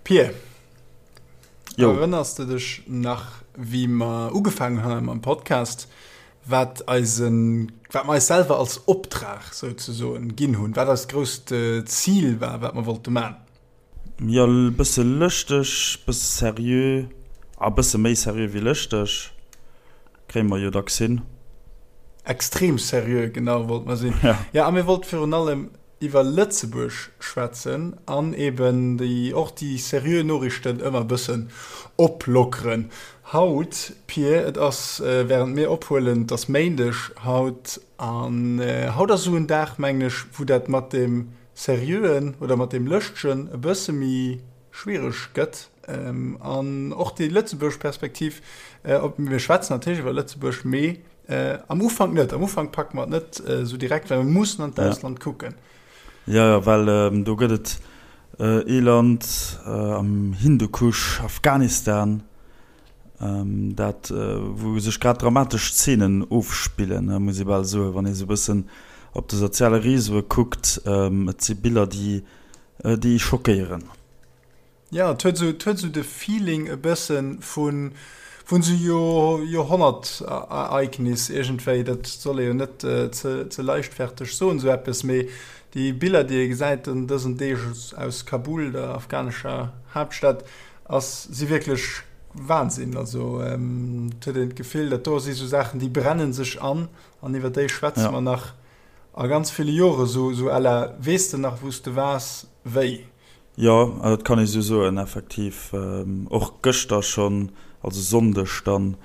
Pir, erënners de dech nach, wéi mer ugefaangen hunn mam Podcast, wat eisen, wat mer eis selwer als Optrag souzesoen ginn hunn, wat eist grousst Zil war, wat mer wollte man? Jo, e bësse lëschteg, bësse seriö, a bësse méi seriö wéi lëschteg, kréie mer jo dacks hin. Extrem seriö, genau, wollte mer sinn. Jo, a mir wollte virun allem iwwer Lëtzebuerg schwätzen an eben déi och déi seriö Noriichten ëmmer e bëssen oplockeren. Haut, Pir, et ass, während mir ophuelen, et ass Méindeg haut, an haut ass esou en Dag, mengen ech, wou dat mat deem Seriöen oder mat deem Lëschtegen e bësse méi schwiereg gëtt an och déi lëtzebuergesch Perspektiv, op, mir schwätzen natierlech iwwer Lëtzebuerg, mee am Ufank net, am Ufank packe mer et net esou direkt, well mir mussen an d'Ausland kucken. Jo, jo, well do gëtt et ee Land am Hindukusch, Afghanistan, dat wou sech grad dramatesch Zeenen ofspillen, muss ee bal soen, wann ee sou e bëssen op de soziale Reseaue kuckt. Et si Biller, déi déi schockéieren. Jo, et huet esou, et huet esou de Feeling e bëssen vun, vun esou Jo, Joerhonnertereignis iergendwéi. Dat soll ee jo net ze, ze leichtferteg soen, esou eppes, mee déi Biller, déi ee gesäit an dësen Deeg aus Kabul, der afghanescher Haaptstad, ass, si wierklech Wahnsinn. Also, et huet een d'Gefill, dat do si esou Saachen, déi brennen sech an, an iwwer déi schwätze mer nach a ganz ville Jore, esou, esou à la, Weess de nach, wou s de waars, wéi? Jo, dat kann ee sou soen, effektiv. Och gëschter schonn, also Sonndeg dann,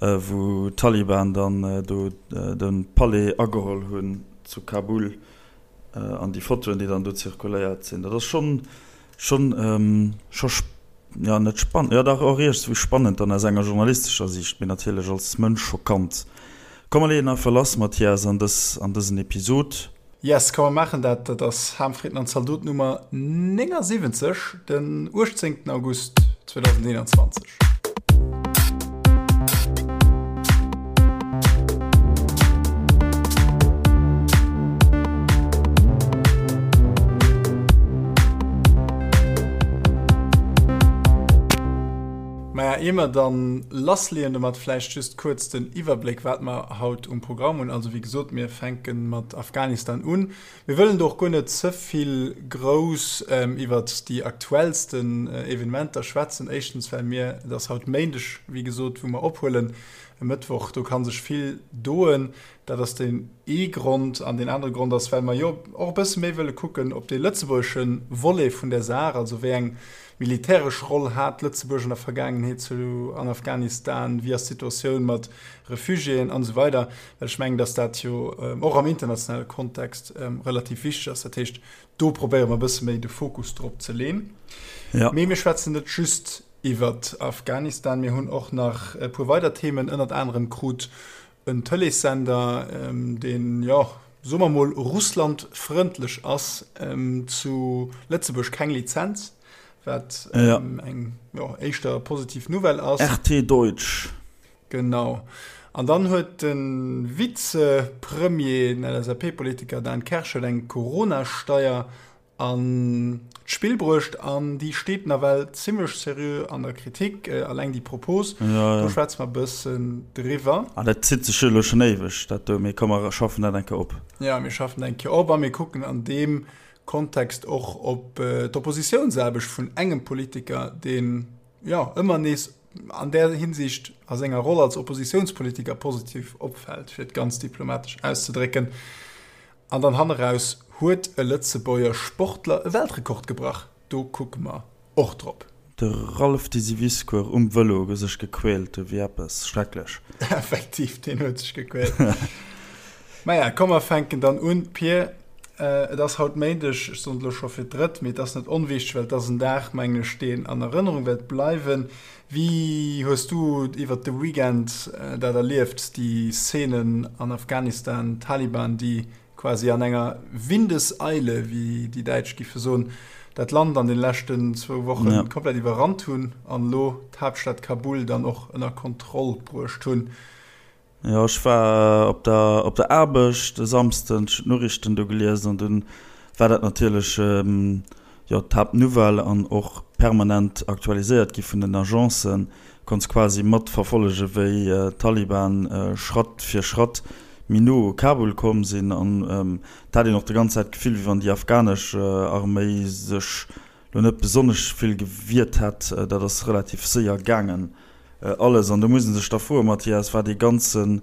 wou d'Taliban dann do de Palais ageholl hunn zu Kabul an déi Fotoen, déi dann do zirkuléiert sinn, dat ass schonn, schonn, scho, jo net spannend, jo dach och iergendwéi spannend dann aus enger journalistescher Siicht, mee natierlech als Mënsch schockant. Komm mer leeën einfach lass, Mathias, an dës, an dësen Episod. Yes, komm mer maachen dat. Dat ass Ham, Fritten an Zaldot Nummer 79, den 18 August 2021. Maja, ier mer dann lassleeën domat, vläicht just kuerz den Iwwerbléck, wat mer haut um Programm hunn. Also wéi gesot, mir fänke mat Afghanistan un. Mir wëllen do och guer net ze vill grouss iwwert déi aktuellsten Evenementer schwätzen. Éischtens, well mir, et ass haut Méindeg, wéi gesot, wou mer ophuelen, e Mëttwoch, do ka sech vill doen. Dat ass deen ee Grond. An deen anere Grond ass, well mer jo och e bësse méi wëlle kucken op dee lëtzebuergesche Volet vun där Saach, also wéi eng militäresch Roll hat Lëtzebuerg an der Vergaangenheet zu an Afghanistan, wéi ass d'Situatioun mat Refugiéen an esou weider, well ech mengen, dass dat jo och am internationale Kontext relativ wichteg ass. Dat heescht, do probéiere mer e bësse méi de Fokus drop ze leen. Ja. Mee mir schwätzen net just iwwer Afghanistan, mir hunn och nach e puer weider Themen, ënnert anerem krut en Tëleessender, deen, jo, soe mer mol russlandfrëndlech ass, zu Lëtzebuerg keng Lizenz, wat eng, jo, éischter positiv Nouvelle ass. RT Deutsch. Genau. An dann huet de Vizepremier, den LSAP-Politiker Dan Kersch huet eng Corona-Steier an d'Spill bruecht an déi steet nawell zimmlech seriö an der Kritik, alleng déi Propos. Do schwätze mer e bëssen driwwer. An dat zitt sech jo elo schonn éiweg, dat do. Mee komm, mer schaffen dat eng Kéier op. Jo, mir schaffen dat eng Kéier op a mir kucken an deem Kontext och op d'Oppositiounsaarbecht vun engem Politiker, deen, jo, ëmmer nees an där Hinsicht a senger Roll als Oppositiounspolitiker positiv opfält, fir et ganz diplomatesch auszedrécken. An dann hanneraus huet e Lëtzebuerger Sportler e Weltrekord gebrach. Do kucke mer och drop. De Ralph Disiviscour um Vëlo sech gequält ewéi eppes schrecklech. Effektiv, deen huet sech gequält. Maja, komm mer fänken dann un. Pir, et ass haut Méindeg, ech soen et elo scho fir d'drëtt, mee et ass net onwichteg, well et ass en Dag, mengen ech, deen an Erënnerung wäert bleiwen. Wéi hues du iwwert de Weekend dat erlieft, déi Szenen an Afghanistan, d'Taliban, déi quasi an enger Windeseile, wéi déi Däitsch giffe soen, dat Land an den leschten zwou Woche komplett iwwerrannt hunn an elo d'Haaptstad Kabul dann och ënner Kontroll bruecht hunn? Jo, ech war op der op der Aarbecht e Samsden, ech hunn d'Noriichten do gelies an dunn war dat natierlech, jo, d'Haaptnouvelle an och. permanent aktualiséiert gi vun den Agencen, konns quasi mat verfollege wéi d'Taliban Schratt fir Schratt méi no u Kabul komm sinn an et hat een och de ganz Zäit d'Gefill wéi wann déi afghanesch Arméi sech lo net besonnesch vill gewiert hätt. Dat ass relativ séier gaangen alles an do muss ee sech da froen, Mathias, war dee ganzen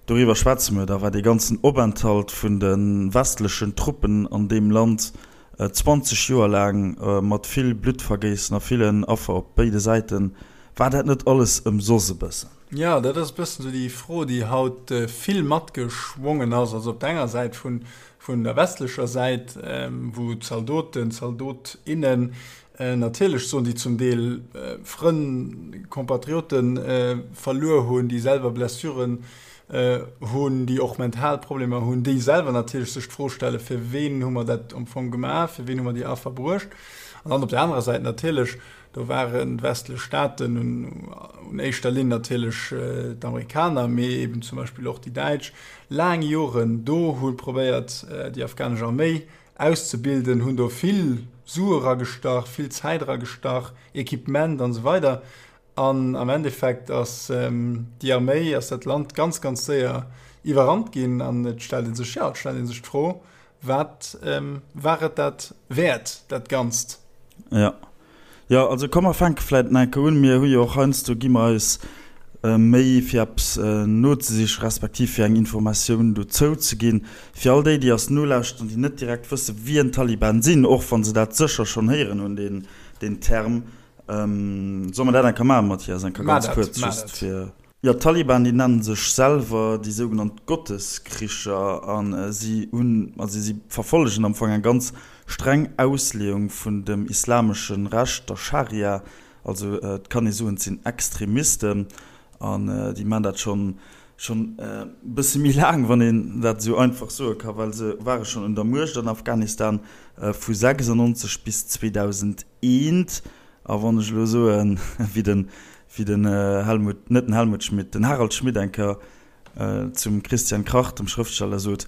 Doriwwer schwätze mer da, war dee ganzen Openthalt vun de westlechen Truppen an deem Land 20 Joer laang mat vill Bluttvergéissen a villen Affer op béide Säiten, war dat net alles ëmsoss e bëssen? Jo, dat ass e bëssen esou déi Fro, déi haut vill matgeschwongen ass. Also op der enger Säit vun der westlecher Säit, wou Zaldoten, Zaldot, innen Natierlech soen déi zum Deel Frënn, Compatriote verluer hunn, déi selwer Blessuren hunn, déi och mental Problemer hunn, déi selwer natierlech sech d'Fro stellen, fir ween hu mer dat am Fong gemaach, fir ween hu mer déi Affer bruecht. An dann op der anerer Säit natierlech, do waren d'westlech Staaten, un éischter Linn natierlech d'Amerikaner, mee eben zum Beispill och déi Däitsch, laang Joren do, hu probéiert déi afghanesch Arméi auszebilden, hunn do vill Sue eragestach, vill Zäit eragestach, Equipement an esou weider. An am Endeffekt ass déi Arméi, ass dat Land ganz, ganz séier iwwerrannt ginn. An et stellt ee sech, jo, et stellt ee sech d'Fro, Wat war et dat wäert, dat Ganzt? Jo. Jo, also komm mer fänke vläit nach eng Kéier un. Mir hu jo och heiansdo, gi mer eis Méi fir eppes nozesichen, respektiv fir eng Informatioun dozou ze ginn. Fir all déi, déi eis nolauschteren, déi net direkt wësse wien d'Taliban sinn, och wa se dat sécher schonn héieren hunn, deen, deen Term. Solle mer dat eng Kéier maachen, Mathias, eng Kéier ganz kuerz, just fir. Jo, d'Taliban, déi nennen sech selwer déi sougenannt Gotteskricher a si hunn, also si verfollegen am Fong eng ganz streng Ausleeung vun dem islamesche Recht, der Scharia. Also et kann ee soen, et sinn Extremisten an déi maachen dat schonn schonn e bësse méi laang, wann een dat esou einfach soe ka, well se ware schonn un der Muecht an Afghanistan vu 96 bis 2001. A wann ech elo soen, wéi den, wéi den Helmut, net den Helmut Schmidt, den Harald Schmidt eng Kéier zum Christian Krach, dem Schrëftsteller, sot,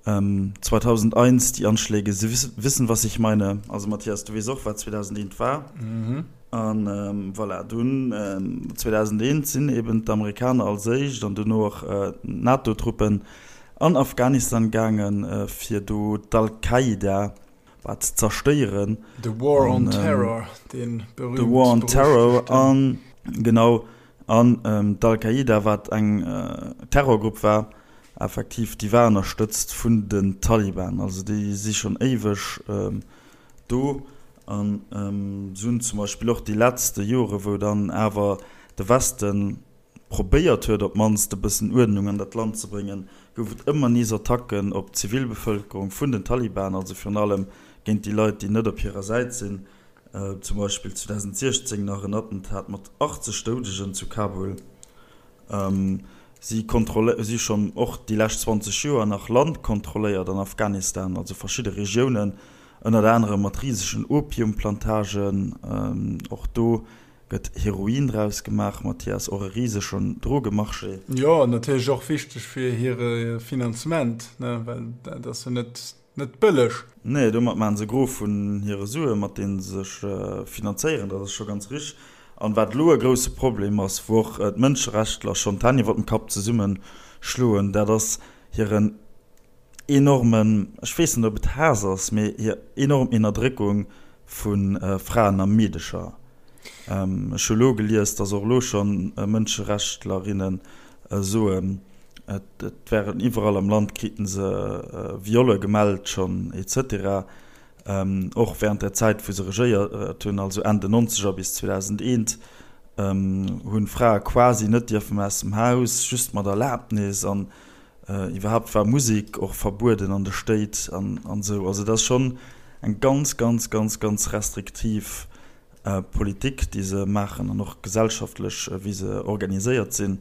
2001, die Anschläge, Sie wissen, was ich meine. Also Mathias, du weess och, wat 2001 war. A voilà, dunn 2001 sinn eben d'Amerikaner als éischt an duerno och d'NATO-Truppen an Afghanistan gaangen, fir do d'Al-Qaida, Wat ze zerstéieren. The War on Terror, dee berühmt-berüchtegten. The War on Terror, an genau, an d'Al-Qaida, wat eng Terrorgrupp war, effektiv, déi war ënnerstëtzt vun den Taliban. Also déi si schonn éiweg do. An se hunn zum Beispill och déi letzte Jore, wou dann awer de Westen probéiert huet, op d'mannst e bëssen Uerdnung an dat Land ze bréngen, gouf et ëmmer nees Attacken op d'Zivilbevëlkerung vun den Taliban, also virun allem géint déi Leit, déi net op hirer Säit sinn. Zum Beispill 2016 nach en Attentat mat 80 Doudegen zu Kabul. Si si schonn och déi lescht 20 Joer nach Land kontrolléiert an Afghanistan, also verschidde Regiounen, ënnert anerem mat risegen Opiumplantagen. Och do Gëtt Heroin draus gemaach, Mathias? Och e risegen Drogemarché. Jo, an natierlech och wichteg fir hire Finanzement, ne, well dat ass jo net, net bëlleg. Nee, domat maachen se e Gros vun hire Suen, mat deene se sech finanzéieren, dat ass scho ganz richteg. An wat elo e grousse Problem ass, wou och d'Mënscherechtler schonn d'Hänn iwwer dem Kapp zesummeschloen, dat ass hiren enormen, ech weess net ob et Haass ass, mee hir enorm Ennerdréckung vu Fraen a Meedecher. Ech hu lo gelies, datt och elo schonn Mënscherechttlerinne soen, et wären iwwerall am Land kriten se Violle gemellt schonn et cetera. Och während der Zäit wou se regéiert hunn, also Enn den Nonzeger bis 2001, hu Frae quasi net dierfen aus dem Haus, just mat Erlaabnis an Iwwerhaapt war Musek och verbueden an de Stéit an esou. Also et ass schonn eng ganz, ganz, ganz, ganz restriktiv Politik, déi se maachen an och gesellschaftlech, wéi se organiséiert sinn.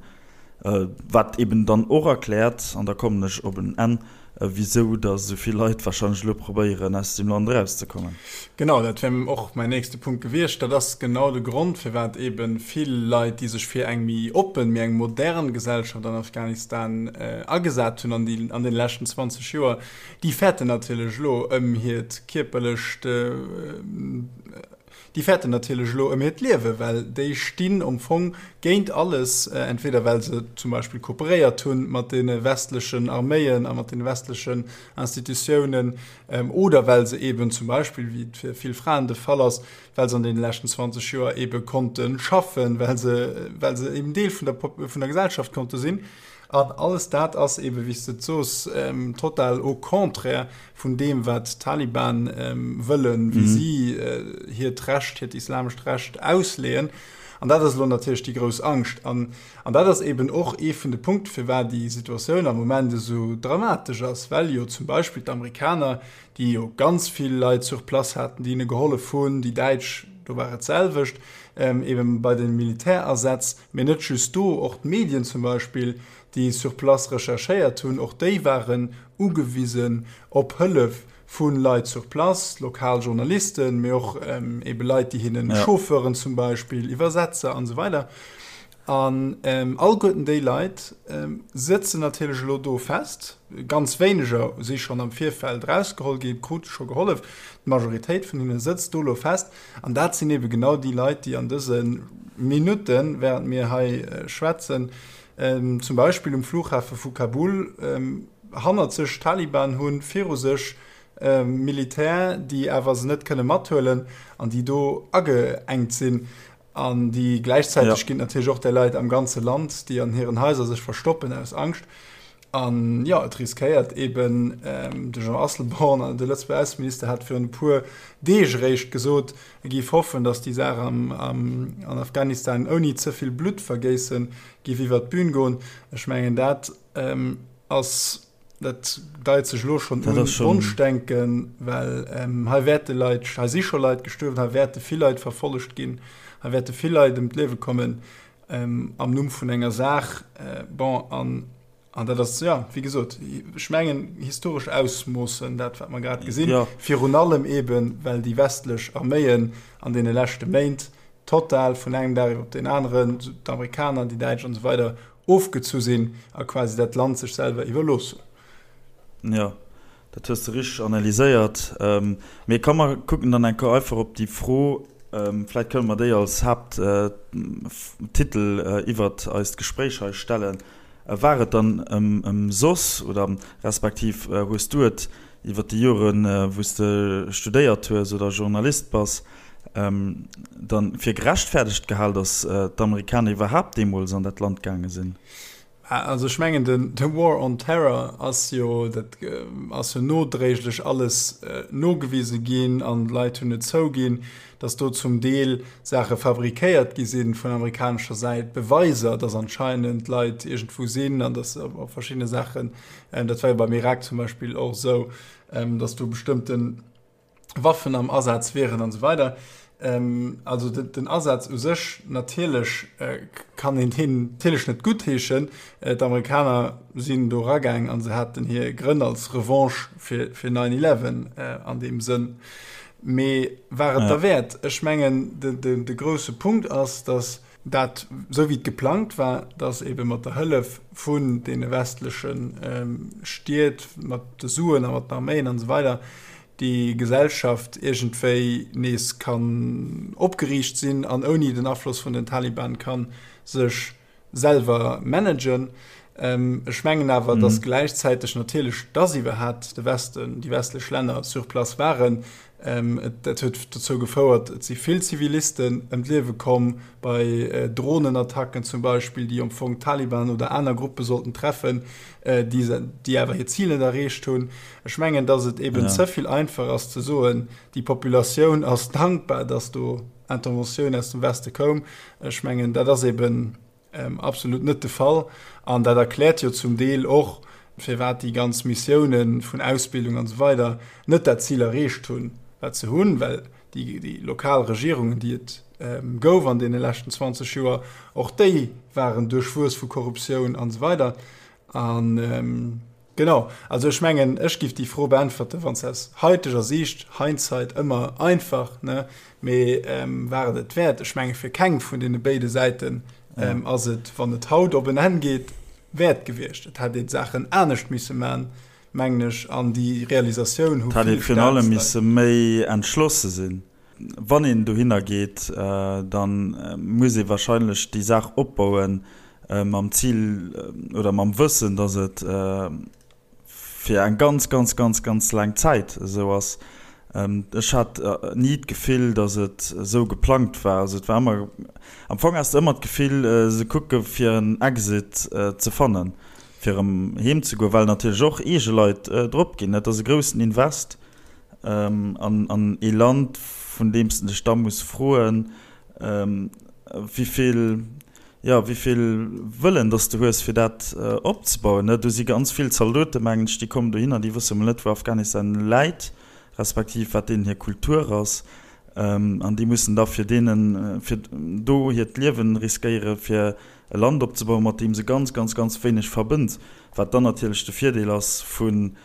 Wat eben dann och erkläert, an da kommen ech op en Enn, wisou datt esou vill Leit warscheinlech elo probéieren, aus deem Land erauszekommen. Genau, dat wär och mäin nächste Punkt gewiescht. Dat ass genau de Grond, firwat eebe vill Leit, déi sech fir eng méi oppen, méi eng modern Gesellschaft an Afghanistan agesat hunn an déi an deene leschten 20 Joer, déi fäerten natierlech elo ëm hiert kierperlecht. Déi fäerten natierlech elo ëm hiert Liewen, well déi stinn am Fong géint alles, entweder well se zum Beispill kooperéiert hu mat deene westlechen Arméien a mat deene westlechen Institutiounen oder well se eeben zum Beispill, wéi et fir vill Fraen de Fall ass, well se an deene leschten 20 Joer eebe konnte schaffen, well se, well se eben Deel vun der, vun der Gesellschaft konnte sinn. An alles dat ass eebe, wéi s de et soos, total au contraire vun deem, wat d'Taliban wëllen, wéi si hiert Recht, hiert islamescht Recht ausleeën. An dat ass elo natierlech déi grouss Angscht. An, an dat ass eeben och ee vun de Punkte, firwat déi Situatioun am Moment esou dramatesch ass, well jo zum Beispill d'Amerikaner, déi jo ganz vill Leit sur place haten, déi hinne gehollef hunn, déi Däitsch, do war et d'selwecht, eben bei de Militärasätz, mee net just do, och d'Medien zum Beispill, déi sur place recherchéiert hunn, och déi waren ugewisen op Hëllef vu Leit sur place, lokal Journalisten, mee och ebe Leit, déi hinnen, Chauffeuren zum Beispill, Iwwersetzer an esou weider. An alleguerten déi Leit sëtzen natierlech elo do fest. Ganz wéineger si schonn am Virfeld erausgeholl ginn, krute scho gehollef. D'Majoritéit vun hinne sëtzt do elo fest. An dat sinn ebe genau déi Leit, déi an dëse Minutten, während mir hei schwätzen, zum Beispill um Flughafe vu Kabul hannert sech Taliban hunn, viru sech Militär, déi awer se net kënne mathuelen an déi do ageengt sinn. An déi gläichzäiteg ginn et natierlech och där Leit am ganze Land, déi an hiren Haiser sech verstoppen aus Angscht. An jo, et riskéiert eeben, de Jean Asselborn, de Lëtzebuerger Ausseminister, hat virun e puer Deeg eréischt gesot, e géif hoffen, datt déi Saach an Afghanistan ouni ze vill Bluttvergéisse géif iwwert d'Bün goen. Ech mengen, dat ass Dat deit sech elo schonn un, Wonschdenken, well hei wäerte Leit, hei si scho Leit gestuerwen, hei wäerte vill Leit verfollegt ginn, hei wäerte vill Leit ëm d'Liewe kommen am Numm vun enger Saach. Bon, an, an dat ass, jo, wéi gesot, ech mengen, historesch Ausmoossen, dat wat mer grad gesinn, virun allem eeben, well déi westlech Arméien an deene leschte Méint total vun engem Dag iwwer op deen aneren, d'Amerikaner, déi Däitsch an esou weider, ofgezu sinn a quasi dat Land sech selwer iwwerlooss hunn. Jo, dat hues de richteg analyséiert. Mee komm mer kucken dann eng Kéier einfach op déi Fro, vläicht kënne mer déi als Haapttitel iwwert eist Gespréich hei stellen, War et dann ëmsoss oder respektiv hues du et iwwert déi Joren, wou s de studéiert hues oder Journalist bass, dann fir gerechtfertegt gehal, datt d'Amerikaner iwwerhaapt deemools an dat Land gaange sinn? Also ech mengen den de War on Terror ass jo, dat ass jo nodréiglech alles nogewise ginn an d'Leit hunn et zouginn, datt do zum Deel Saache fabrikéiert gi sinn vun amerikanescher Säit, Beweiser, datt anscheinend Leit iergendwou sinn an datt op verschiddene Saachen, dat war jo beim Irak zum Beispill och esou, datt do bestëmmten Waffen am Asaz wieren an esou weider. Also den Asaz u sech, natierlech kann een deen natierlech net guttheeschen. D'Amerikaner sinn do eragaang a se haten hir Grënn als Revanche fir 9/11 an deem Sënn. Mee war et derwäert? Ech mengen, de grousse Punkt ass, datt dat, esou wéi et geplangt war, datt eebe mat der Hëllef vun deene westleche Stied, mat de Suen a mat den Arméien an esou weider, déi Gesellschaft iergendwéi nees kann opgeriicht sinn an ouni den Afloss vun den Taliban ka sech selwer managen. Ech mengen awer, datt gläichzäiteg natierlech, datt iwwerhat de Westen, déi westlech Länner sur place waren, dat huet dozou gefouert, et si vill Zivilisten ëm d'Liewe komm bei Dronenattacken zum Beispill, déi am Fong d'Taliban oder aner Gruppe sollten treffen, déi awer hir Zil net erreecht hunn. Ech mengen, datt et eben ze vill einfach ass ze soen, déi Populatioun ass dankbar, datt do Interventioun aus dem Weste koum. Ech mengen, dat ass eben absolut net de Fall. An dat erkläert jo zum Deel och, firwat déi ganz Missiounen vun Ausbildung an esou weider net dat Zil erreecht hunn, wat se hunn, well déi lokal Regierungen, déi et gouf an deene leschten 20 Joer, och déi waren duerchwuess vu Korruptioun an esou weider. An genau, also ech mengen, ech giff déi Fro beäntwerten, wann se aus haiteger Siicht, Hindsight ëmmer einfach, ne, mee war et et wäert? Ech menge fir keng vun deene béide Säiten ass et, wann et haut op en Enn geet, wäert gewiescht. Et hätt een d'Saachen anescht misse man, mengen ech, an déi Realisatioun hu vill. Et hätt ee virun allem misse méi entschlosse sinn. Wann een dohinner geet, da muss ee wahrscheinlech déi Saach opbauen mam Zil oder mam Wëssen, datt et fir eng ganz, ganz, ganz, ganz laang Zäit esou ass. Ech hat ni d'Gefill, datt et esou geplangt war. Also et war ëmmer, am Fong has de ëmmer d'Gefill, se kucke fir en Exit ze fannen, fir erëm heem ze goen, well natierlech och eege Leit drop ginn. Et ass e groussen Invest an ee Land, vun deem s de dech da muss froen, wéi vill, jo, wéi vill Wëllen dass de hues, fir dat opzebauen. Do si ganz vill Zaldoten, mengen ech, déi kommen dohinner, déi wësse mol net, wou Afghanistan läit, respektiv wat deenen hir Kultur ass. An déi mussen da fir deenen, fir do hiert Liewen riskéieren, fir e Land opzebauen, mat deem se ganz, ganz, ganz wéineg verbënnt. Wat dann natierlech de Virdeel ass vun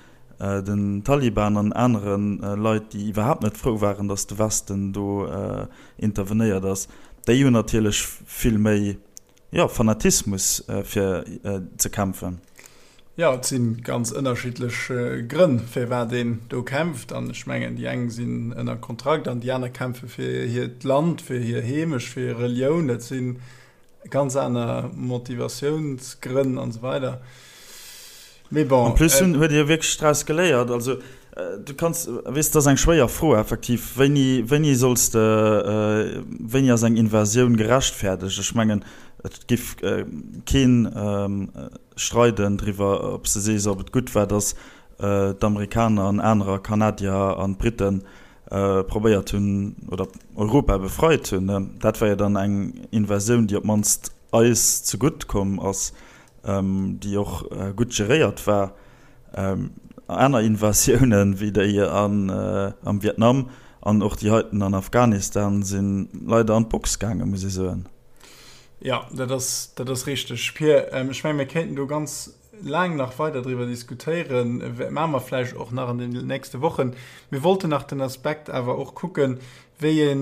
den Taliban an anere Leit, déi iwwerhaapt net frou waren, datt de Westen do intervenéiert ass, déi hunn natierlech vill méi, jo, Fanatismus fir ze kämpfen. Jo, et si ganz ënnerschiddlech Grënn, firwat een do kämpft. An ech mengen, déi eng sinn ënner Kontrakt an déi aner kämpfe fir hiert Land, fir hir Heemecht, fir hir Relioun. Dat si Ganz aner Motivatiounsgrënn an esou weider. Mee bon. En plus hunn, huet Dir wierklech draus geléiert? Also, du kanns, weess, dat ass eng schwéier Fro effektiv. Wéini, wéini solls de, wéini ass eng Invasioun gerechtfäerdegt? Ech mengen, et giff keen streiden driwwer, ob s de sees, ob et gutt war, datt d'Amerikaner an anerer, Kanadier an d'Briten, probéiert hunn oder Europa befreit hunn. Dat war jo dann eng Invasioun, déi op d'mannst eis zegutt komm ass, déi och gutt geréiert war. Aner Invasiounen, wéi déi am Vietnam an och déi heiten an Afghanistan, si leider an d'Box gaangen, muss ee soen. Jo, dat ass, dat ass richteg, Pir. Ech menge mir kéinten do ganz laang nach weider driwwer diskutéieren, maache mer vläicht och nach an den nächste Wochen. Mir wollten nach den Aspekt awer och kucken, wéi e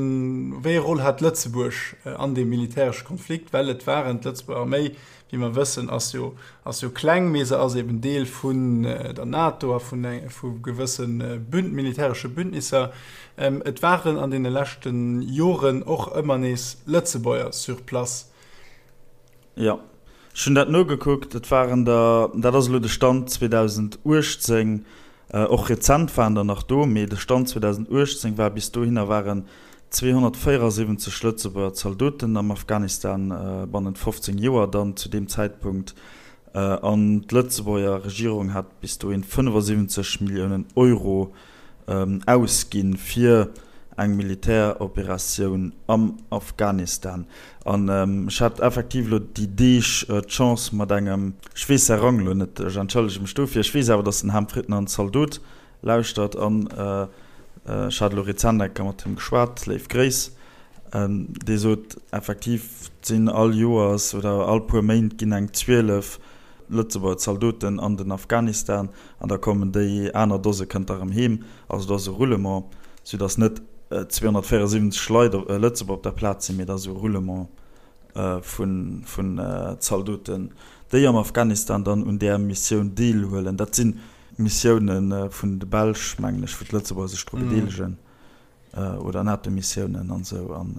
wéi e Roll hat Lëtzebuerg an deem militäresche Konflikt, well et waren d'Lëtzebuerger Arméi, wéi mer wëssen, ass jo ass jo kleng, mee se ass eben Deel vun der NATO a vun vu gewësse Bünd militäresche Bündnisser. Et waren an deene leschte Joren och ëmmer nees Lëtzebuerger sur place. Jo, ech hunn dat nogekuckt. Et waren der, dat ass elo de Stand 2018, och rezent waren der nach do, mee de Stand 2018 war, bis dohinner waren 274 Lëtzebuerger Zaldoten am Afghanistan bannent 15 Joer dann zu deem Zäitpunkt. An d'Lëtzebuerger Regierung hat bis dohin 75 Milliounen Euro ausginn fir eng Militäroperatioun am Afghanistan. An ech hat effektiv elo déi Deeg d'Chance mat engem, ech weess säi Rang elo net, ech entschëllege mech dofir, ech weess awer, datt den Ham Fritner en Zaldot lauschtert an ech hat elo rezent eng Kéier mat him geschwat, léif Gréiss, dee sot effektiv, et sinn all Joers oder all puer Méint ginn eng 12 Lëtzebuerger Zaldoten an den Afghanistan an da kommen déi aner Dose kënnt da rëm heem. Also et ass e Roulement, soudass net 274 Leit, Lëtzebuerger op der Plaz sinn, mee et ass e Roulement vun Zaldoten, déi am Afghanistan dann un där Missioun deelhuelen. Dat si Missioune vun de Belsch, mengen ech, wou d'Lëtzebuerger sech dru bedeelegen. Oder NATO-Missiounen an esou. An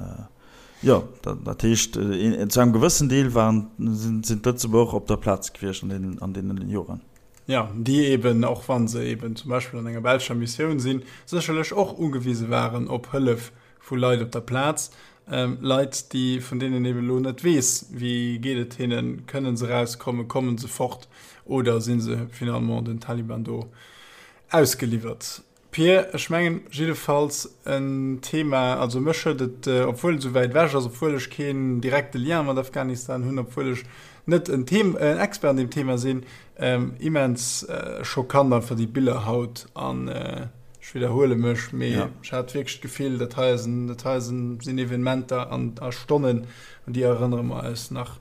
jo, dat heescht, zu engem gewëssen Deel waren, sinn d'Lëtzebuerger och op der Plaz gewiescht an deene Joren. Jo, déi eben, och wa se eben zum Beispill an enger belscher Missioun sinn, sécherlech och ugewise waren op Hëllef vu Leit op der Plaz. Leit, déi, vun deenen een eben elo net weess, wéi geet et hinnen, kënnen se erauskommen, kommen se fort oder si se finalement den Taliban do ausgeliwwert. Pir, ech mengen jiddefalls en Thema, also mech huet et, obwuel et esou wäit ewech ass, obwuel ech keen direkte Lien mat Afghanistan hunn, obwuel ech net en Them en Expert an deem Thema sinn, immens schockant einfach déi Biller haut an ech widderhuele mech, mee ech hat wierklech d'Gefill, dat hei ass en, dat hei sinn Evenementer an a Stonnen, un déi erënnere mer eis nach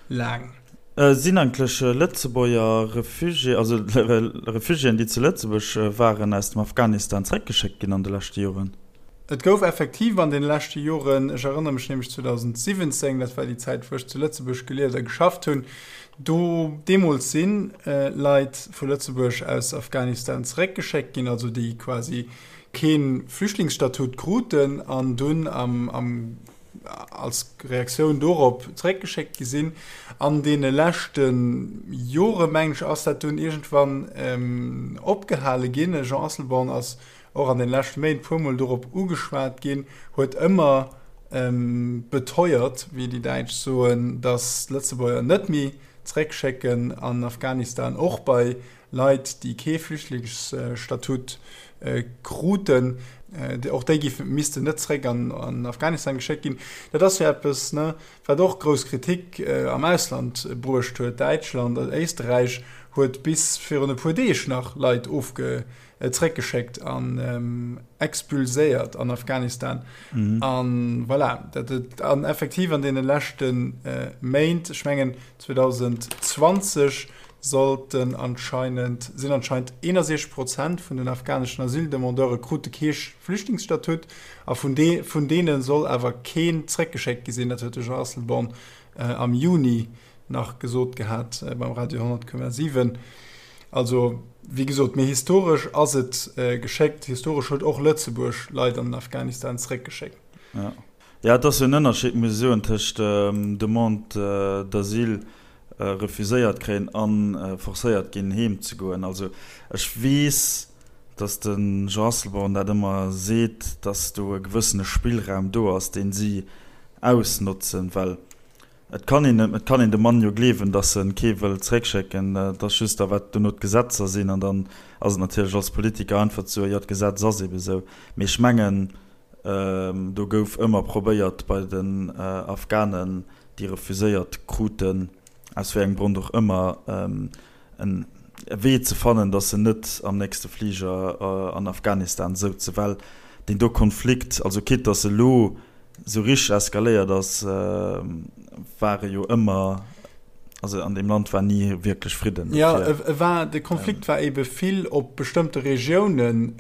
laang. Sinn eigentlech Lëtzebuerger Refugié, also Refugiéen, déi zu Lëtzebuerg waren, aus dem Afghanistan zeréckgeschéckt ginn an de leschte Joren? Et gouf effektiv an deene leschte Joren, ech erënnere mech nämlech 2017, dat war déi Zäit, wou ech zu Lëtzebuerg gelieft a geschafft hunn, do deemools si Leit vu Lëtzebuerg aus Afghanistan zeréckgeschéckt ginn, also déi quasi. Kee Flüchtlingsstatut kruten an dunn am als Reaktioun dorop zeréckgeschéckt gi sinn. An deene leschte Jore, mengen ech, ass dat dunn iergendwann opgehale ginn. De Jean Asselborn ass och an den leschte Méint puermol dorop ugeschwat ginn, huet ëmmer beteuert, wéi déi Däitsch soen, datt d'Lëtzebuerger net méi zeréckschécken an Afghanistan, och bei Leit, déi kee Flüchtlingsstatut kruten, och déi géifen, missten net zeréck an Afghanistan geschéckt ginn. Dat ass jo eppes, ne, wat och grouss Kritik am Ausland bruecht huet. Däitschland, Éisterräich huet bis virun e puer Deeg nach Leit ofge zeréckgeschéckt an expulséiert an Afghanistan. An voilà, dat et an effektiv an deene leschte Méint, ech mengen 2020 sollten anscheinend, sinn anscheinend 61 Prozent vun den afghaneschen Asyldemandeure krute kee Flüchtlingsstatut a vun de vun deene soll awer keen zeréckgeschéckt gi sinn. Dat huet de Jean Asselborn am Juni nach gesot gehat beim Radio 10,7. Also, wéi gesot, mee historesch ass et geschéckt. Historesch huet och Lëtzebuerg Leit an den Afghanistan zeréckgeschéckt. Jo, jo, et ass jo en Ënnerscheed, muss ech soen, tëscht Demande d'asile refuséiert kréien a forcéiert ginn, heem ze goen. Also ech weess, datt de Jean Asselborn dat ëmmer seet, datt do e gewëssene Spillraum do ass, deen si ausnotzen, well Et kann een, et kann een dem Mann jo gleewen, datt en kee wëll zréckschécken. Et ass just da wat dono d'Gesetzer sinn. An dann ass et natierlech als Politiker einfach ze soen, jo d'Gesetz ass ebe sou. Mee ech mengen, do gouf ëmmer probéiert bei den Afghanen, déi refuséiert kruten, aus wéi engem Grond och ëmmer, en Wee ze fannen, datt se net am nächste Fliger an Afghanistan souzen, well deen do Konflikt, also quitte datt e lo sou richteg eskaléiert ass, war e jo ëmmer, also an deem Land war ni wierklech Fridden. Jo, e war, de Konflikt war ebe vill op bestëmmte Regiounen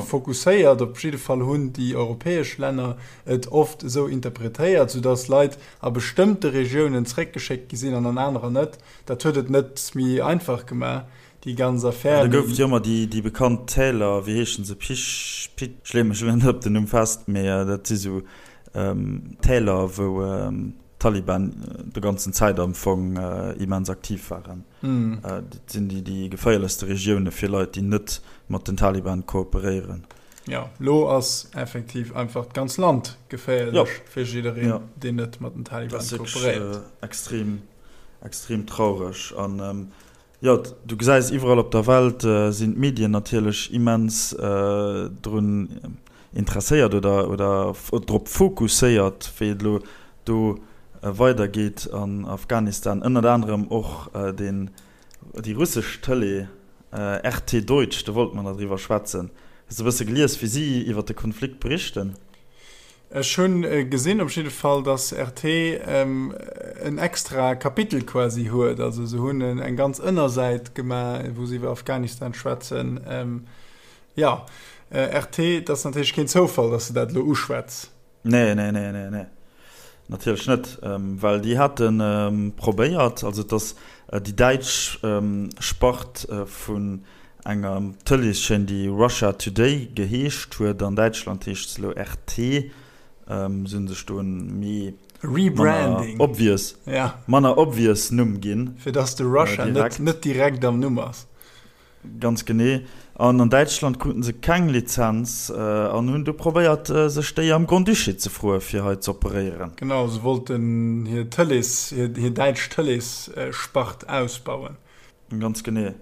fokusséiert. Op jidde Fall hunn déi europäesch Länner et oft esou interpretéiert, soudatt Leit a bestëmmte Regiounen zréckgeschéckt gi sinn an an anerer net. Dat huet et net méi einfach gemaach, déi ganz Affär. Da gouf et jo ëmmer déi bekannt Täler, wéi heeschen se, Pich, Pit, ech leeë mech elo net op den Numm fest, mee dat si sou Täler, wou d'Taliban de ganzen Zäit am Fong immens aktiv waren. Dat sinn déi geféierlechste Regioune fir Leit, déi net mat den Taliban kooperéieren. Jo, lo ass effektiv einfach d'ganz Land geféierlech fir jiddereen, deen net mat den Taliban kooperéiert. Extrem, extrem traureg. An jo, du gesäis iwwerall op der Welt sinn d'Medien natierlech immens drun interesséiert oder oder drop fokusséiert, wéi et elo do weidergeet an Afghanistan. Ënnert anerem och deen déi russesch Tëlee RT Deutsch, do wollte mer nach driwwer schwätzen. Hues de e bësse gelies, wéi si iwwer de Konflikt berichten? Ech hunn gesinn op jidde Fall, datt RT en extra Kapitel quasi huet. Also se hunn eng ganz Ënnersäit gemaach, wou se iwwer Afghanistan schwätzen. Jo, RT, et ass natierlech keen Zoufall, datt s de dat elo uschwätz. Nee, nee, nee, nee, nee. Natierlech net, well déi hate probéiert, also et ass déi däitsch Spart vun enger Tëleeschaîne, déi Russia Today geheescht huet, an Däitschland heescht se elo RT, se hu sech do en méi manner obvious, manner obvious Numm ginn. Fir datt de Russia net direkt am Numm ass. Ganz genee. An an Däitschland kruten se keng Lizenz an hunn du probéiert, sech déi am Grand-Duché ze froe fir hei z'operéieren. Genau, se wollten hir Tëlees, hir däitsch Tëleesspart ausbauen. Ganz genee.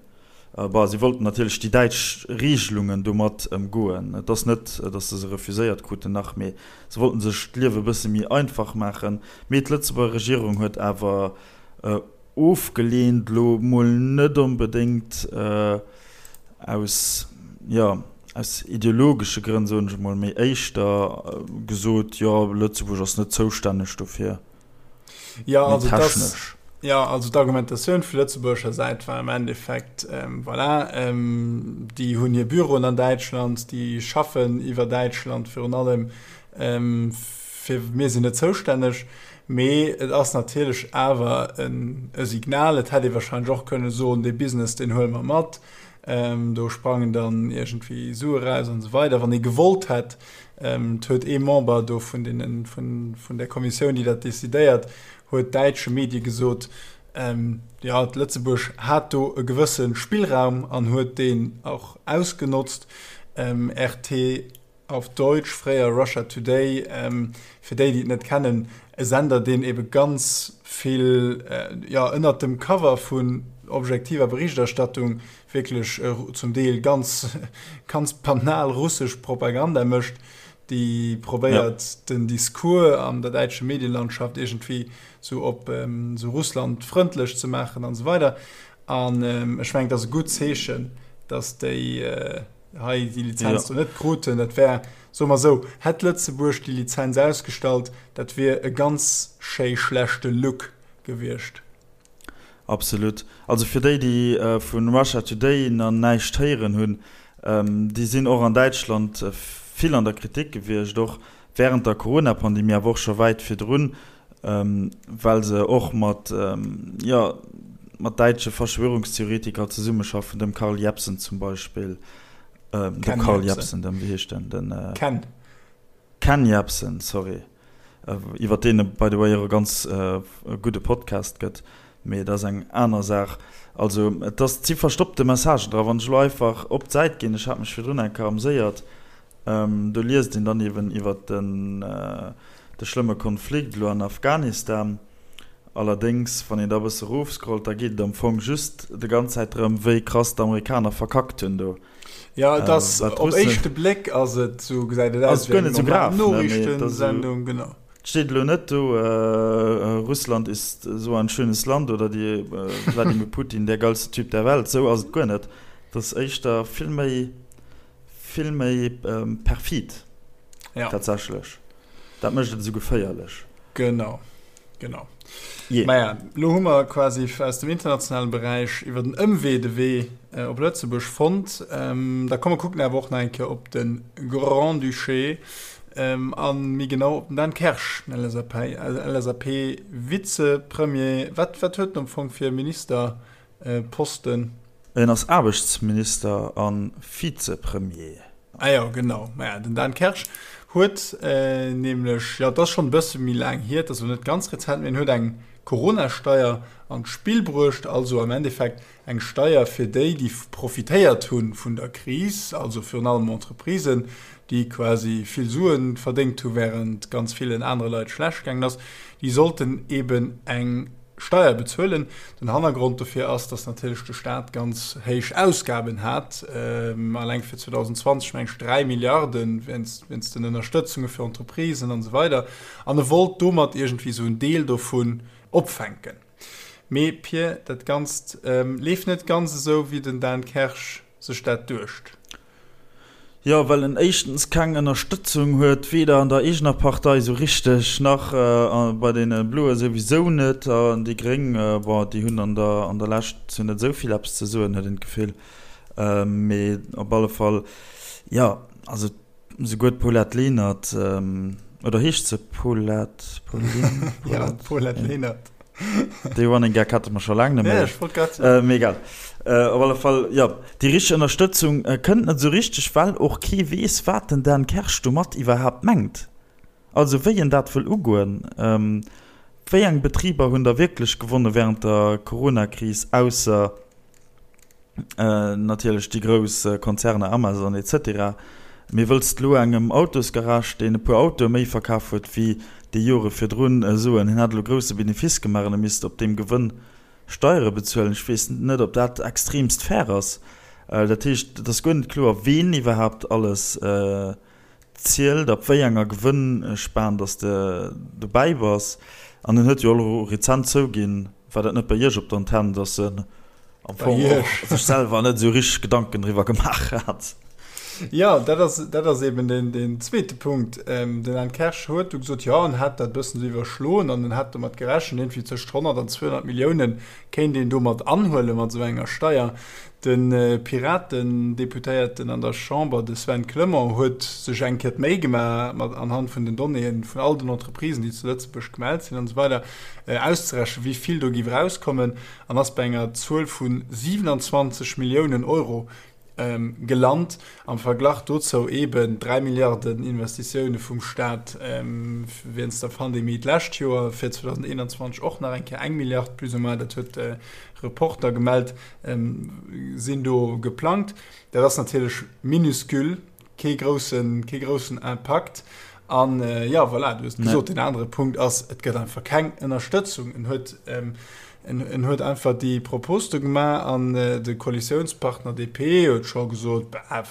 Bah, si wollten natierlech déi däitsch Regelungen domat ëmgoen. Et ass net, datt se se refuséiert kruten, nach, mee se wollten sech d'Liewe e bësse méi einfach maachen. Mee d'Lëtzebuerger Regierung huet awer Ofgeleent, elo mol net onbedéngt aus, jo, aus ideologesche Grënn, soen ech emol, mee éischter gesot, jo, Lëtzebuerg ass net zoustänneg dofir, mee technesch. Jo, also d'Argumentatioun vu lëtzebuergescher Säit war am Endeffekt, voilà, déi hunn hir Büroen an Däitschland, déi schaffen iwwer Däitschland virun allem, fir mir sinn net zoustänneg. Mee et ass natierlech awer e Signal. Et hätt ee warscheinlech och kënne soen, dee Business, deen huele mer mat. Do sprangen dann iergendwéi Sue raus an esou weider. Wann ee gewollt hätt, et huet ee Member do vun deenen, vun, vun där Kommissioun, déi dat decidéiert, huet däitsche Medie gesot, jo, Lëtzebuerg hat do e gewësse Spillraum an huet deen och ausgenotzt. RT. Auf Deutsch, fréier Russia Today, fir déi, déi et net kennen, e Sender, deen ebe ganz vill, jo, ënnert dem Cover vun objektiver Berichterstattung wierklech zum Deel ganz, ganz banal russesch Propaganda mécht, déi probéiert, den Discours an der däitsche Medienlandschaft iergendwéi sou op sou russlandfrëndlech ze maachen an esou weider. An ech mengen, et ass e gutt Zeechen, datt déi, hei déi Lizenz do net kruten. Dat wär, soe mer esou, hätt Lëtzebuerg déi Lizenz ausgestallt, dat wier e ganz schéi schlechte Look gewiescht. Absolut. Also fir déi, déi vu Russia Today nach näischt héieren hunn, déi sinn och an Däitschland vill an der Kritik gewiescht, och während der Corona-Pandemie, awer och scho wäit virdrun, well se och mat, jo, mat däitsche Verschwörungstheoretiker zesummeschaffen, dem Karl Jebsen zum Beispill, dem Ken Karl Jebsen. Jebsen, dem, wéi heescht den, den Ken. Ken Jebsen, sorry, iwwer deen et by the way och e ganz gudde Podcast gëtt, mee dat ass eng aner Saach. Also et ass, et si verstoppte Messagen dra. Wann ech elo einfach op d'Säit ginn, ech hat mech virdrun eng Kéier amséiert, Do liest een dann eben iwwer de schlëmme Konflikt elo an Afghanistan. Allerdéngs, wann een da e bësse erofscrollt, da geet et am Fong just de ganz Zäit drëm, wéi krass d'Amerikaner verkackt hunn do. Jo, et ass, op éischte Bléck ass et esou, gesäit et aus wéi eng normal Noriichtensendung, genau. Et steet elo net do, Russland ist so ein schönes Land oder die Wladimir Putin der geilste Typ der Welt. Esou ass et guer net. Et ass éischter vill méi. Vill méi perfid ja. Tatsächlech. Dat mécht et esou geféierlech. Genau, genau. Yeah. Maja, lo hu mer quasi aus dem internationalen Beräich iwwer den Ëmwee de Wee äh, op Lëtzebuerg fonnt. Ähm, da komme kucken awer och nach eng Kéier op de Grand-Duché ähm, an méi genau op den Dan Kersch, den LSAP, LSAP-Vizepremier. Wat, wat huet en am Fong fir Ministerposten? En ass Aarbechtsminister a Vizepremier. Ah jo, genau. Maja, den Dan Kersch huet nämlech, jo, et ass schonn e bësse méi laang hier, et ass elo net ganz rezent, mee en huet eng Corona-Steier an d'Spill bruecht, also am Endeffekt eng Steier fir déi, déi profitéiert hu vun der Kris, also virun allem Entreprisen, déi quasi vill Sue verdéngt hu wärend ganz villen anere Leit schlecht gaangen ass, déi sollten eeben eng Steier bezuelen. Den Hannergrond dofir ass, datt natierlech de Staat ganz héich Ausgaben hat, alleng fir 2020 meng ech 3 Milliarden wéinst den Ënnerstëtzunge fir Entreprisen an esou weider. An e wollt domat iergendwéi esou en Deel dovun opfänken. Mee Pir, dat Ganzt leeft net ganz esou, wéi den Dan Kersch sech dat duecht. Jo, well en éischtens keng Ënnerstëtzung huet, weder an der eegener Partei esou richteg, nach bei deene Bloe souwisou net. An déi Gréng, bon, déi hunn an der an der Lescht zu net esou vill eppes ze soen, huet een d'Gefill. Mee op alle Fall, jo, also souguer d'Paulette Lenert, oder heescht se Paulette, Pauline, Paulette? Jo, d'Paulette Lenert. Dee Running Gag hate mer scho laang net méi. Ech wollt grad soen. Mee egal. Op alle Fall, jo, déi richteg Ënnerstëtzung kënnt net esou richteg, well och kee weess, wat den Dan Kersch domat iwwerhaapt mengt. Also wéi en dat wëll ugoen. Wéi eng Betriber hunn da wierklech gewonne wärend der Coronakris, ausser Natierlech déi grouss Konzerner Amazon etc. Mee wëlls de lo engem Autosgarage, deen e puer Autoe méi verkaf huet wéi déi Jore virdrun, soen, hien hätt elo grousse Benefice gemaach an e misst op deem Gewënn Steiere bezuelen? Ech weess net, ob dat extremst fair ass. Dat heescht, et ass guer net kloer, ween iwwerhaapt alles zielt, ab wéi enger Gewënnspan dass de dobäi bass. An en huet jo och elo rezent zouginn, war dat net bei Iech op der Antenn, dass en am Fong och sech selwer net esou richteg Gedanken driwwer gemaach hat. Jo, dat ass, dat ass eben deen, deen zweete Punkt. Den Dan Kersch huet du gesot, jo, en hätt dat e bëssen esou iwwerschloen an en hätt domat gerechent, iergendwéi tëscht 100 an 200 Millioune kéint een domat anhuelen, mat esou enger Steier. De Piraten-Deputéierten an der Chamber, de Sven Clement, huet sech eng Kéier d'Méi gemaach, mat anhand vun den Donnéeën vun all den Entreprisen, déi zu Lëtzebuerg gemellt sinn an esou weider, auszerechnen, wéi vill do géif erauskommen, an ass bei enger Zuel vu 27 Milliounen Euro gelant. Am Verglach dozou eeben 3 Milliarden Investitioune vum Staat wéinst der Pandemie d'lescht Joer, fir 2021 och nach eng Kéier eng Milliard plus ou moins, dat huet de Reporter gemellt, sinn do geplangt. Dat ass natierlech minuscule, kee groussen, kee groussen Impakt. An jo, voilà, du hues et gesot, deen anere Punkt ass, et gëtt einfach keng Ënnerstëtzung. En huet En huet einfach déi Propos do gemaach an de Koalitiounspartner DP huet scho gesot, Bah,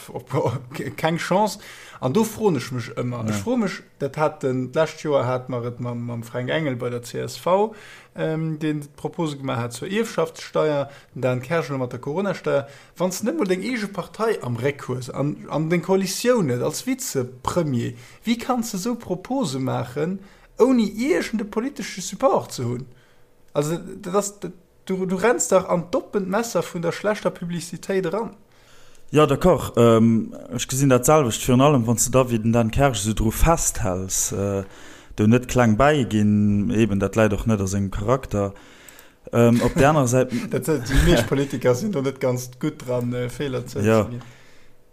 keng Chance. An do froen ech mech ëmmer, ech froe mech, dat hat den, d'lescht Joer hate mer et mam Fränk Engel bei der csv, deen d'Propose gemaach hat zur Ierfschaftssteier, den Dan Kersch elo mat der Coronasteier, Wann s de net mol deng eege Partei am Réck hues an deng Koalitioun net als Vizepremier, wéi kanns de esou Propose maachen, ouni iergende politesche Support ze hunn? Also dat ass, du, du renns dach an d'oppent Messer vun der schlechter Publicitéit eran. Jo, d'accord, ech gesinn dat selwecht. Virun allem wann s de da wéi den Dan Kersch esou dru festhäls, do net kleng bäiginn, eben dat läit och net a sengem Charakter. Op där anerer Säit. Dat, déi meescht Politiker sinn do net ganz gutt dran, Feeler zouzeginn.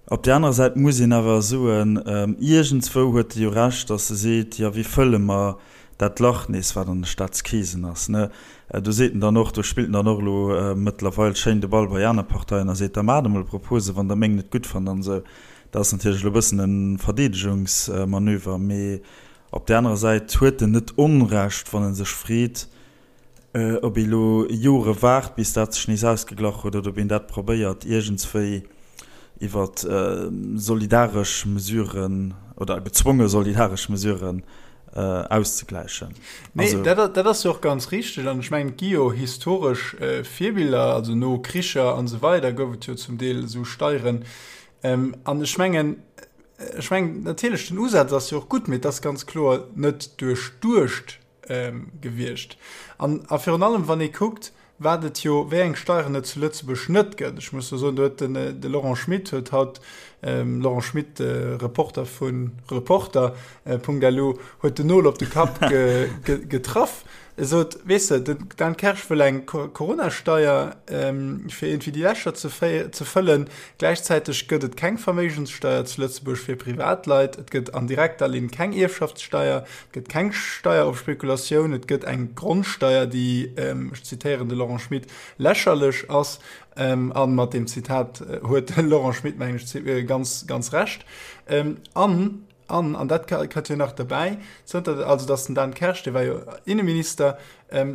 Op där anerer Säit muss een awer soen, iergendswou huet e jo Recht, datt e seet, jo wéi fëlle mer dat Lach nees, wat an de Staatskeesen ass, ne? Do seet en dann och, do spillt en dann och elo mëttlerweil schéin de Ball bei aner Parteien a seet, da maacht emol Propose wann der meng net gutt fannt an esou. Dat ass natierlech elo e bëssen e Verdeedegungsmanöver, mee op där anerer Säit huet en net Onrecht, wann e sech freet, Ob ee lo Jore waart, bis dat sech nees ausgeglach huet, oder ob een dat probéiert iergendswéi iwwer solidaresch Mesuren oder gezwonge solidaresch Mesuren auszegläichen. Nee, dat, dat ass jo och ganz richteg. An ech mengen, et gi jo historesch Virbiller, also no Kricher an esou weider gouf et jo zum Deel esou Steieren. An ech mengen, ech mengen natierlech, den Usaz ass jo och gutt, mee et ass ganz kloer net duerchduecht. Gewiescht. An a virun allem, wann ee kuckt, wat et jo, wéi eng Steieren et zu Lëtzebuerg net gëtt. Ech muss do soen, do huet den, de Laurent Schmit huet haut, Laurent Schmit, Reporter vu Reporter. Lu, huet den Nol op de Kapp getraff. E sot, weess de, den Dan Kersch wëll eng Coronasteier, fir iergendwéi déi Lächer ze ze fëllen. Gläichzäiteg gëtt et keng Verméigenssteier zu Lëtzebuerg fir Privatleit, et gëtt an direkter Linn keng Ierfschaftssteier, et gëtt keng Steier op Spekulatioun, et gëtt eng Grondsteier, déi, ech zitéieren de Laurent Schmit, lächerlech ass. A mat deem Zitat huet de Laurent Schmit, mengen ech, ganz, ganz Recht. An, an, an dat kënnt jo nach derbäi, zënter, also datt den Dan Kersch, dee war jo Inneminister,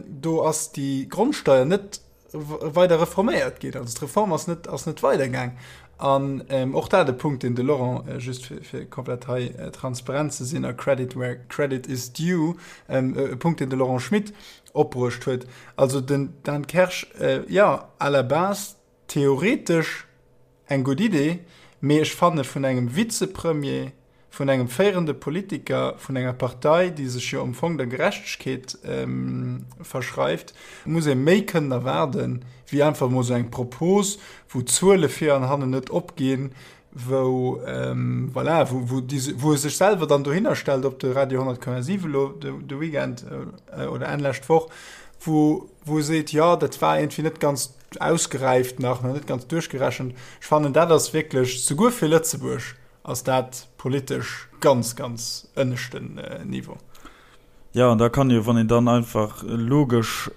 do ass déi Grondsteier net weider reforméiert ginn. Also d'Reform ass net, ass net weidergaang. An ähm, och dat e Punkt, deen de Laurent, äh, just fir, fir komplett hei äh, transparent ze sinn a Credit where credit is due, ähm, e Punkt, deen de Laurent Schmit opbruecht huet. Also den Dan Kersch, äh, ja, à la base theoretesch Eng gutt Idee, mee ech fanne vun engem Vizepremier, vun engem féierende Politiker vun enger Partei, déi sech jo am Fong der Gerechtegkeet verschreift, muss ee méi kënnen erwaarden, wéi einfach emol esou eng Propos, wou d'Zuele vir an hannen net opginn, wou, voilà, wou wou e sech selwer dann dohinner stellt op de Radio 100,7 elo de Weekend oder Enn lescht Woch, wou wou e seet, jo, dat war iergendwéi net ganz ausgeräift nach, nach net ganz duerchgerechent. Ech fannen, dat ass wierklech, souguer fir Lëtzebuerg ass dat politesch ganz, ganz ënneschten Niveau. Jo, an da kann jo, wann een dann einfach logesch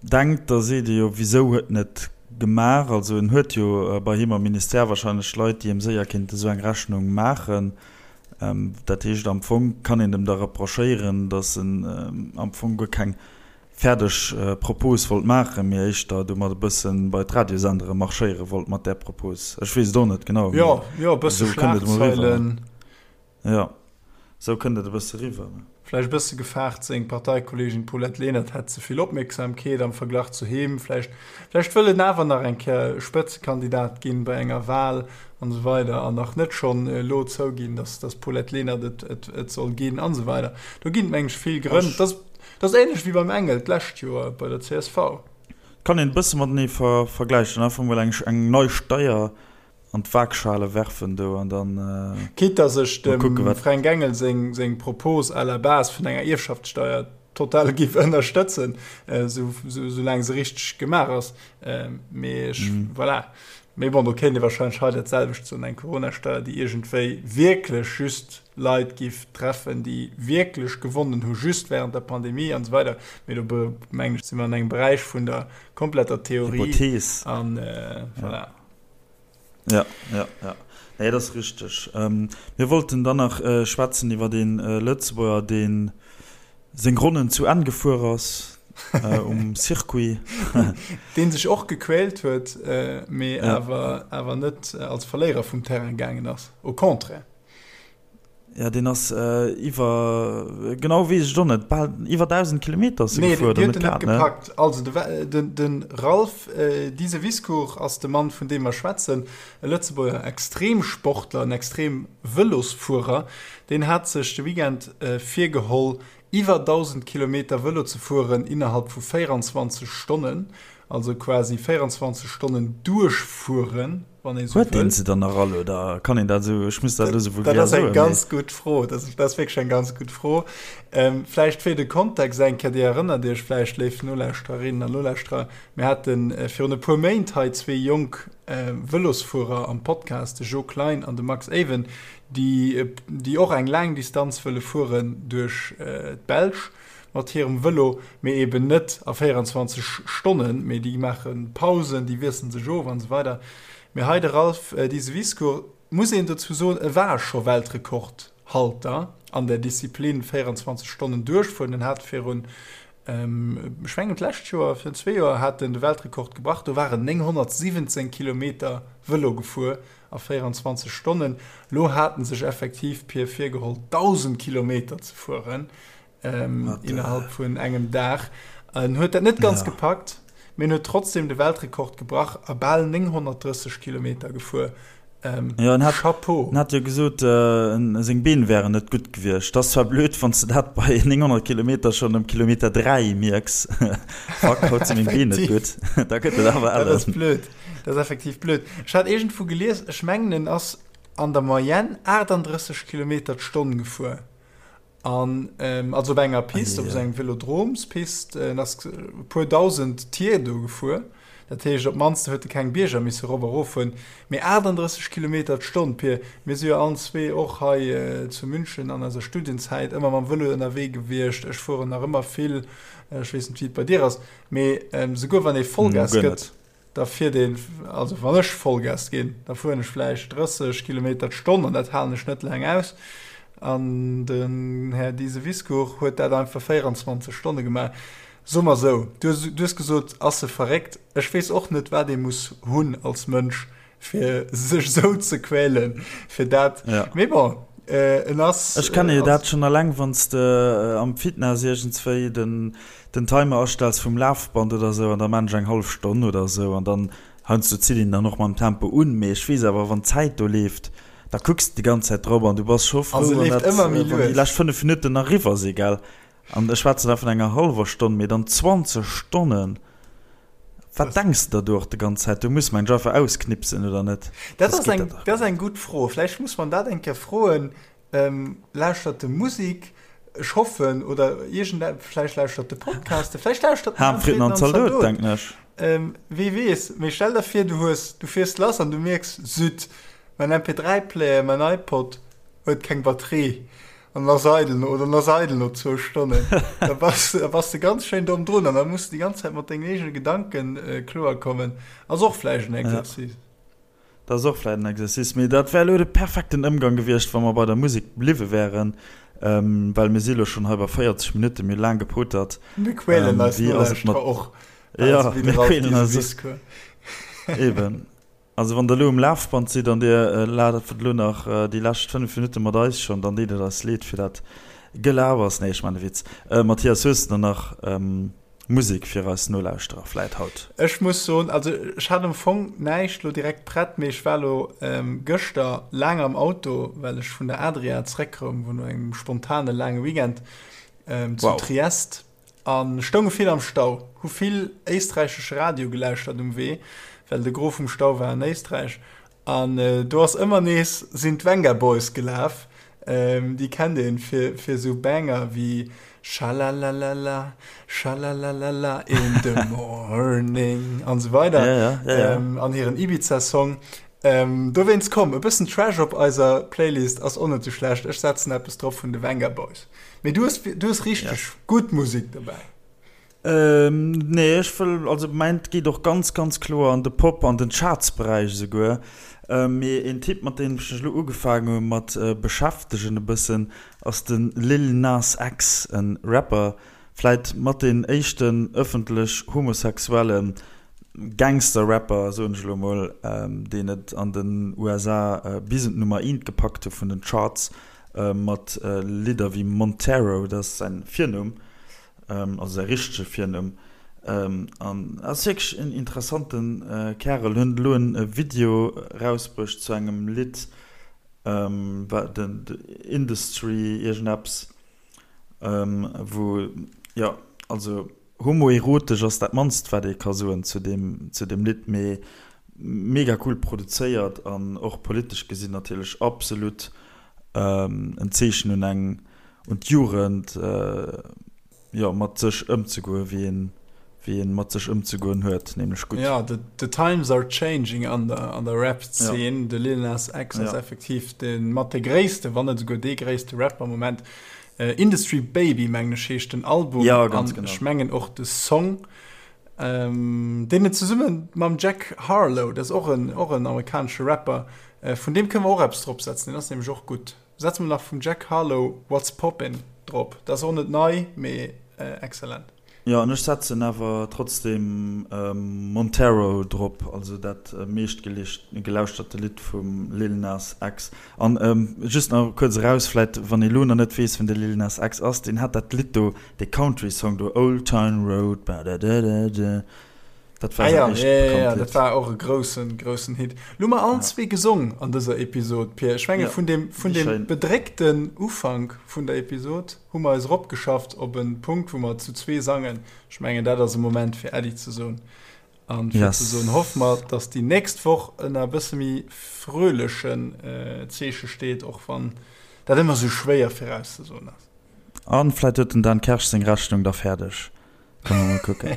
denkt, da seet ee jo, wisou huet en et gemaach? Also en huet jo bei him am Ministère wahrscheinlech Leit, déi em séier kéinte sou eng Rechnung maachen. Dat heescht, am Fong kann een em da reprochéieren, datt en am Fong guer keng fäerdeg Propos wollt maachen, mee éischter domat e bësse bei d'Radiosendere marschéiere wollt mat där Propos. Ech weess et och net genau, mee Jo, jo, e bësse esou kënnt et emol eriwwer. Schlagzeilen. Jo, esou kënnt et e bësse eriwwer. Vläicht e bësse gefaart, seng Parteikolleegin Paulette Lenert hätt ze vill Opmierksamkeet am Verglach zu him. Vläicht, vläicht wëll en awer nach eng Kéier Spëtzekandidat ginn bei enger Wal. An esou weider an nach net schonn elo zouginn, dass dass Paulette Lenert et et et soll ginn an esou weider. Do ginn et meng ech vill Grënn. Dat ass dat ass ähnlech wéi beim Engel d'lescht Joer bei der csv. Kann een e bësse matenee ver vergläichen. Einfach mol eng eng nei Steier an d'Waagschale werfen do an dann Quitte dass ech mol dem kucken wat. Fränk Engel seng seng Propos à la base vun enger Ierfschaftssteier total giff ënnerstëtzen, esou esou soulaang se richteg gemaach ass. Mee ech voilà. Mee bon, do kéint ee wahrscheinlech hei dat selwecht soen, eng Coronasteier, déi iergendwéi wierklech just Leit giff treffen, déi wierklech gewonnen hu just während der Pandemie an esou weider. Mee do mengen ech, si mer an engem Beräich vun der kompletter Theorie. Hypothees. An voilà. Ja, ja, ja. Nee, dat ass richteg. Mir wollten dann nach schwätzen iwwer ee Lëtzebuerger, dee seng Ronnen zu Enn gefuer ass um Circuit. Dee sech och gequält huet, mee awer awer net als Verléierer vum Terrain gaangen ass, au contraire. Ja, deen ass iwwer, genau weess ech et och net, bal iwwer 1.000 Kilometer ass e gefuer, oder net grad, ne? Nee, déi huet en net gepackt. Also de de Ralph Diseviscourt ass de Mann, vun deem mer schwätzen, e Lëtzebuerger Extremsportler, en Extremvëlosfuerer. Deen hat sech de Weekend virgeholl, iwwer 1.000 Kilometer Vëlo ze fueren innerhalb vu 24 Stonnen, also quasi 24 Stonnen duerchfueren, wann ee sou Huet deen wëll. se dann nach all oder kann een dat esou, ech muss dat elo sou Dat vulgär ass eng soen, mee. ganz gutt Fro. Dat ass, dat ass wierklech eng ganz gutt Fro. Ähm, vläicht fir de Kontext eng Kéier, Dir erënnert Iech vläicht, léif Nolauschtererinnen an Nolauschterer, mir hate virun e puer Méint hei zwee jonk Vëlosfuerer am Podcast, de Jo Klein an de Max Ewen, déi, déi och eng laang Distanz wëlle fueren duerch d'Belsch mat hirem Vëlo, mee eben net a 24 Stonnen, mee déi maache Pausen, déi wiesselen sech of an esou weider. Mee hei de Ralph Diseviscourt, muss een dozou soen, e war scho Weltrekordhalter an der Disziplin 24 Stonnen duerchfueren. En hat virun, ech mengen d'lescht Joer, virun zwee Joer hat en de Weltrekord gebrach, do war en 917 Kilometer Vëlo gefuer a 24 Stonnen. Lo hat en sech effektiv, Pir, virgeholl 1.000 Kilometer ze fueren. ähm, innerhalb vun engem Dag. En huet dat net ganz ja. gepackt, mee huet trotzdem de Weltrekord gebrach a bal 930 Kilometer gefuer. Ähm, ja, en hat, Chapeau. En hat jo gesot, äh, seng Been wären net gutt gewiescht. Dat ass zwar blöd, wann s de dat bei 900 Kilometer schonn um Kilometer 3 mierks. Fuck, haut si meng Been net gutt. Da gëtt et awer ellen. Dat ass blöd. Dat ass effektiv blöd. Ech hat iergendwou gelies, ech mengen en ass an der Moyenne 38 Kilometer d'Stonn gefuer. An also op enger Pist, op esou engem Velodromspist, en ass e puer 1.000 Tier do gefuer. Dat heescht, op d'mannst huet e keng Bierger misse erop a rof fueren. Mee 38 Kilometer d'Stonn, Pir, mir si jo allen zwee och hei zu München an eiser Studienzäit ëmmer mam Vëlo ënnerwee gewiescht. Ech fueren nach ëmmer vill, ech weess net, wéi et bei dir ass, mee souguer wann ee Vollgas gëtt, Da fiert een, also wann ech Vollgas ginn, da fueren ech vläicht 30 Kilometer d'Stonn an dat halen ech net laang aus. An den Här Diseviscourt huet dat einfach 24 Stonne gemaach. Soe mer esou, du hues gesot, ass e verréckt? Ech weess och net, wat ee muss hunn als Mënsch, fir sech esou ze quälen, fir dat. Mee bon, en ass. Ech kenne jo dat schonn eleng, wann s de am Fitness iergendswéi den den Timer astells vum Lafband oder sou an da maan ech eng hallef Stonn oder sou an dann heiansdo zitt een dann och mam Tempo un, mee ech weess awer wann d'Zäit do leeft, da kucks de déi ganz Zäit drop an du bass scho frou wann dat wann déi lescht 5 Minutten nach eriwwer si gell an ech schwätzen da vun enger hallwer Stonn, mee dann 20 Stonnen, wat denks de der do och de ganz Zäit? Do muss mensch einfach ausknipsen oder net? Dat ass eng dat ass eng gutt Fro, vläicht muss man dat eng Kéier froen. Lauschtert de Musik, ech hoffen, oder iergend vläicht lauschtert de Podcaste, vläicht lauschtert den Fritten an Zaldot, denken ech. Wie weess, mee stell der vir, du hues, du fiers lass an du mierks, Zut, mäin MP3-Player, mäin iPod huet keng Batterie an ass eidel no, oder en ass eidel no zwou Stonnen. Da bass, da bass de ganz schéin domm drun an da muss de déi ganz Zäit mat dengen eegene Gedanken kloerkommen. Ass och vläicht en Exercice. Dat ass och vläit en Exercice, mee dat wär elo de perfekten Ëmgang gewiescht, wa mer bei der Musek bliwwe wären, well mir si elo schonn hei bei 40 Minutten, mir hu laang gepotert. Mir quälen eis Nolauschterer och, also wéi de Ralph Diseviscourt. Eben. Also wann der elo um Lafband sidd an dir laft elo nach déi lescht 5 Minutte mat eis schonn, dann deet et eis leed fir dat Gelabers. Nee, ech maachen e Witz. Mathias, hues de der nach? Musek fir eis Nolauschterer vläit haut? Ech muss soen, also ech hat am Fong näischt lo direkt prett, mee ech war lo gëschter laang am Auto, well ech vun der Adria zréckkoum, wou no engem spontane laange Weekend zu Wow. Triest a stounge vill am Stau, hu vill éisträichesche Radio gelauschtert um Wee, well de Gros vum Stau war an Éisträich. An do ass ëmmer nees sinn d'Vengaboys gelaf, déi kennt een fir fir sou Banger wéi Schalalalala, schalalalala in the morning an sou weider Ja, ja, ja, ja. an hiren Ibiza-Song. Dowéinst komm, e bëssen Trash op eiser Playlist ass och net sou schlecht. Ech setzen eppes drop vun de Vengaboys. Mee du hues du hues richteg Yes. gutt Musek dobäi. Nee, ech wëll, also mäint geet och ganz, ganz kloer an de Pop, an den Chartsberäich esouguer. Mee een Typ, mat deem ech mech elo ugefaangen hu mat beschäftegen e bëssen, ass de Lil Nas X, e Rapper, vläit mat deen éischten ëffentlech homosexuelle Gangster-Rapper, soen ech elo mol, deen et an den USA bis un d'Nummer eent gepackt hu vun den Charts, mat Lidder wéi Montero, dat ass säin Virnumm. also säi richtege Virnumm, an ass wierklech en interessante Kärel. Huet elo en Video rausbruecht zu engem Lidd, wat den Industry iergendeppes, wou, jo, also homoerotesch ass dat mannst wat ee ka soen zu deem, zu deem Lidd, mee mega cool produzéiert an och politesch gesinn natierlech absolut en Zeechen un eng un d'Jugend, jo, mat sech ëmzegoen, wéi een, wéi een mat sech ëmzegoen huet, nämlech gutt. Jo, the, the times are changing an der, an der Rap-Zeen. Ja. De Lil Nas X ass Ja. effektiv de mat de gréisste, wann net esouguer dee gréisste Rapper am Moment. Industry Baby, mengen ech, heescht den Album. Ja, ganz an genau. ech mengen och de Song, ähm, deen en zesumme mam Jack Harlow, dat ass och en, och en amerikanesche Rapper, vun deem kënne mer och eppes dropsetzen, deen ass nämlech och gutt. Setze mer nach vum Jack Harlow What's Poppin' drop. Dat ass och net nei, mee excellent. Jo, an ech setzen awer trotzdem Montero drop, also dat meescht gelauschterte Lidd vum Lil Nas X. An just nach kuerz eraus, vläit wann ee lo nach net weess wien de Lil Nas X ass, deen hat dat Lidd do, dee Country Song do, Old Town Road, badadadada. Dat war ah, ja, ja, ja, dat war och e groussen groussen Hit. Lo mer allen zwee gesong an dëser Episod Pier. Ech menge ja, vun dem vun dem bedréckten Ufank vun der Episod hu mer eis eropgeschafft op en Punkt, wou mer zu zwee sangen. Ech mengen dat ass e Moment fir Äddi ze soen. An fir yes. ze soen hoffe mer, dass déi nächst Woch ënner e bësse méi fröhlechen äh, Zeeche steet, och wann dat ëmmer sou schwéier virauszesoen ass. An vläit huet den Dan Kersch seng Rechnung da fäerdeg. Können wir mal gucken.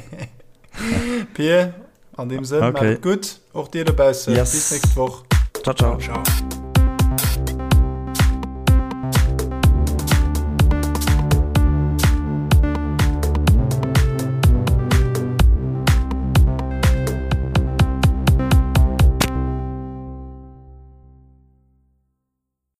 Pier, an dem Sënn, okay. macht gut. Och dir dobaussen. Yes. Bis nächst Woch. Ciao, ciao. Ciao.